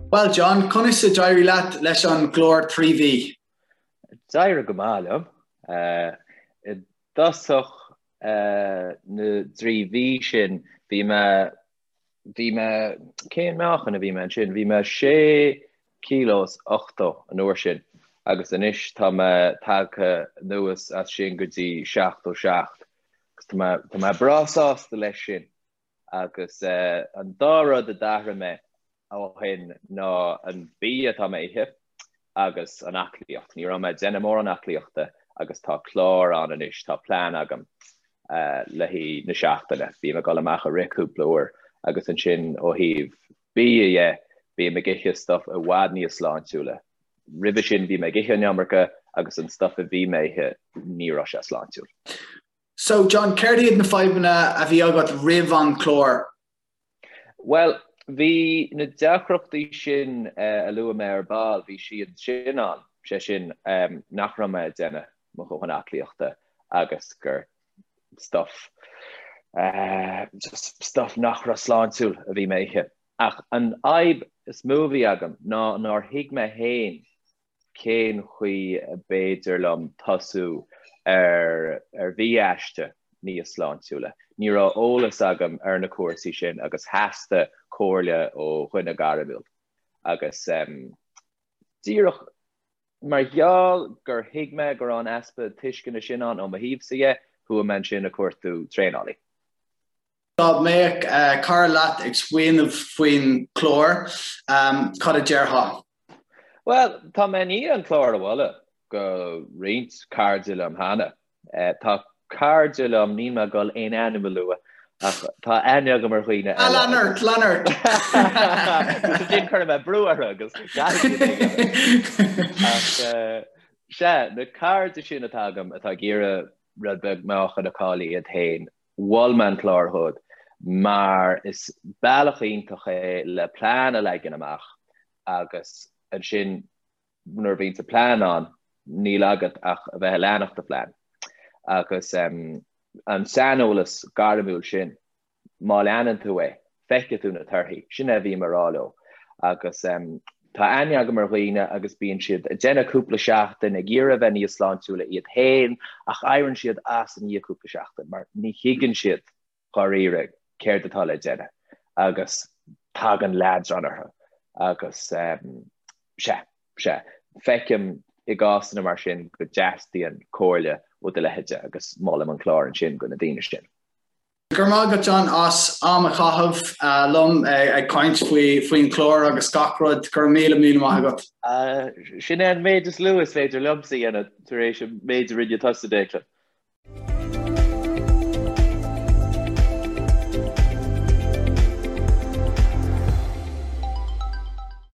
Bhuel John, conas a d'éirigh leat leis an gclár 3 mhí? D'éirigh go maith liom. I dtosach na dtrí mhí sin bhí mé, bhí mé, cén meáchan a bhí mé ansin? Bhí mé sé kilo is 80 an uair sin agus anois tá mé tagtha anuas as sin go dtí 77 agus tá mé, tá mé breá sásta leis sin. Agus an dá rud a d'athraigh mé ó shin ná an bia atá mé a ithe agus an aclaíocht. Ní raibh mé ag déanamh mórán aclaíochta agus tá clár ann anois, tá plean agam le haghaidh na seachtaine. Bím ag dul amach ag rith cúpla uair agus ansin ó thaobh bia dhe, bím ag ithe stuff i bhfad níos sláintiúla. Roimhe sin bhí mé ag ithe an iomarca agus an stuff a bhí mé a ithe ní raibh sé sláintiúil. So, John, céard iad na fadhbanna a bhí agat roimh an chlár? Bhuel, bhí na deacrachtaí sin a luaigh mé ar ball, bhí siad sin ann, sé sin nach raibh mé ag déanamh mo dhóthain aclaíochta agus gur stuff, just stuff nach raibh sláintiúil a bhí mé a ithe. Ach an fhadhb is mó a bhí agam ná nár thuig mé féin cén chaoi a b'fhéidir liom tosú ar ar bhia-aiste níos sláintiúla. Ní raibh eolas agam ar na cúrsaí sin agus theastaigh comhairle ó dhuine gairmiúil. Agus díreach mar gheall gur thuig mé go raibh an easpa tuisceana sin ann ó mo thaobhsa dhe, chuaigh mé ansin ag cuartú traenálaí. Dá mbeadh cara leat ag smaoineamh faoin chlár, cad a déarfá? Bhuel, tá mé i ndiaidh an clár a mholadh go roinnt cairde liom cheana. Tá cairde liom, níl mé ag dul aon ainm a lua, ach tá aithne agam ar dhaoine eile. Lean ort, lean ort! Agus ansin cuirfidh mé brú orthu agus caithfidh siad é a dhéanamh. Ach sea, na cairde sin atá agam atá ag iarraidh rud beag meáchain a chailleadh iad féin, Mhol mé an clár dhóibh mar is bealach iontach é le plean a leagan amach agus ansin nuair a bhíonns an plean ann níl agat ach a bheith ag leanacht do phlean. Agus an saineolas gairmiúil sin, má leanann tú é, feicfidh tú na torthaí. Sin é a bhím a rá leo. Agus tá aithne agam ar dhaoine agus bíonn siad ag déanamh cúpla seachtain ag iarraidh a bheith níos sláintiúla iad féin ach éiríonn siad as i ndiaidh cúpla seachtain mar ní thuigeann siad dháiríre céard atá le déanamh agus tagann leadrán orthu agus sea, sea, feicim i gcásanna mar sin go dteastaíonn comhairle ó do leithéide agus molaim an clár ansin do na daoine sin. Go raibh maith agat John as am a chaitheamh liom ag caint faoin chlár agus gach rud. Go raibh míle míle maith agat. Sin é an méid is lú is féidir liomsa a dhéanamh tar éis an méid a rinne tusa, Declan.